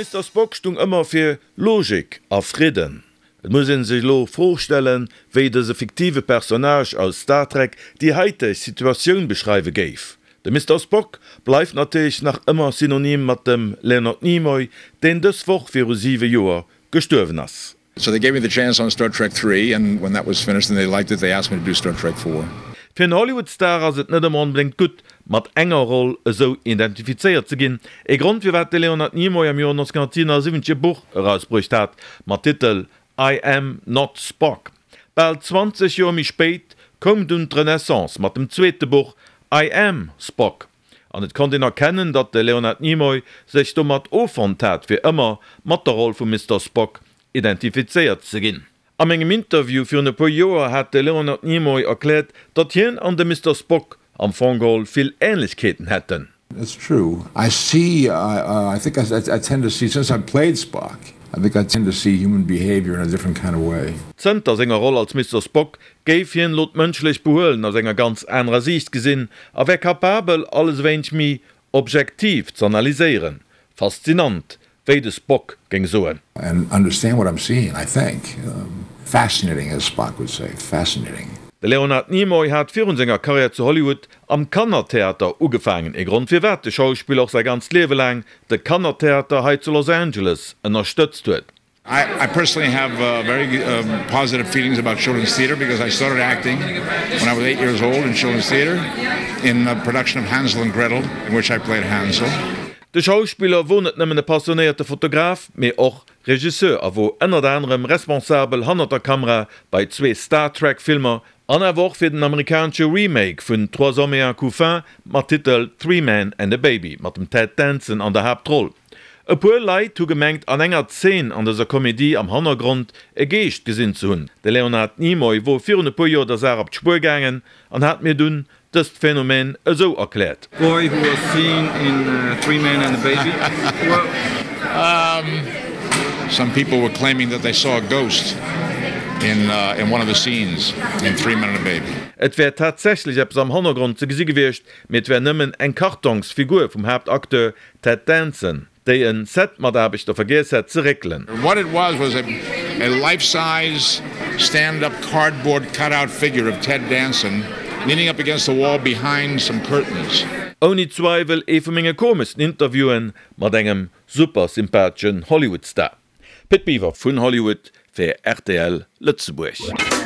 Mister Spock stung ëmmer fir Logik a Fridden. Et muss een sech elo Fro stellen, wéi dëse fiktive Personnage aus Star Trek déi haiteg Situatioun beschreiwe géif. De Mister Spock bleift natierlech nach ëmmer synonym mat dem Leonard Nimoy, deen dës Woch viru 7 Joer gestuerwen ass. So they gave me the chance on Star Trek 3 and when that was finished and they liked it they asked me to do Star Trek 4. Fir en Hollywood-Star ass et net ëmmer onbedéngt gutt, mat enger Roll esou identifizéiert ze ginn. Ee Grond firwat de Leonard Nimoy am Joer 1977 e Buch erausbruecht hat mat Titel I Am Not Spock. Bal 20 Joer méi spéit koum dunn d'Renaissance mat dem zweete Buch I Am Spock. An et konnt een erkennen, datt de Leonard Nimoy sech domat offonnt hat, fir ëmmer mat der Roll vum Mister Spock identifizéiert ze ginn. Am engem Interview virun e puer Joer hat de Leonard Nimoy erkläert, datt hien an de Mister Spock am Fong geholl vill Änlechkeeten hätten. It's true. I see, I think I tend to see, since I played Spock, I think I tend to see human behavior in a different kind of way. Zënter senger Roll als Mister Spock géif hien elo d'mënschlecht Behuelen aus enger ganz anerer Siicht gesinn a wär capabel, alles e wéineg méi objektiv z'analyséieren. Faszinant, wéi de Spock géing soen. And understand what I'm seeing, I think. Fascinating, as Spock would say. Fascinating. De Leonard Nimoy hat virun senger Karriär zu Hollywood am Kannertheater ugefaangen, ee Grond firwat de Schauspiller och säi ganzt Liewe laang de Kannertheater hei zu Los Angeles ënnerstëtzt huet. I personally have very positive feelings about children's theater because I started acting when I was 8 years old in children's theater in a production of Hansel and Gretel in which I played Hansel. De Schauspiller wor net nëmmen e passionéierte Fotograf, mee och Regisseur a wor ënnert anerem responsabel hannert der Kamera bei zwee Star Trek Filmer an awer och fir den amerikanesche Remake vun Trois hommes et un couffin mat Titel Three Men and a Baby mat dem Ted Danson an der Haaptroll. E puer Leit hu gemengt an enger Zeen an dëser Komedie am Hannergrond e Geescht gesinn ze hunn. De Leonard Nimoy wor virun e puer Joer der Saach op d'Spuer gaangen an hat mir dunn dëst Phänomen esou erkläert. Boy who was seen in Three Men and a Baby. Some people were claiming that they saw a ghost in in one of the scenes in Three Men and a Baby. Et wär tatsächlech eppes am Hannergrond ze gesi gewiescht, mee et wär nëmmen eng Kartongsfigur vum Haaptacteur Ted Danson, déi en Set-Mataarbechter vergiess hätt ze réckelen. What it was was a a life-size stand-up cardboard cut-out figure of Ted Danson leaning up against the wall behind some curtains. Ouni Zweiwel ee vu menge komeschsten Interviewen mat engem super sympatheschen Hollywood-Star. Pit Biwer vun Hollywood fir rtl Lëtzebuerg.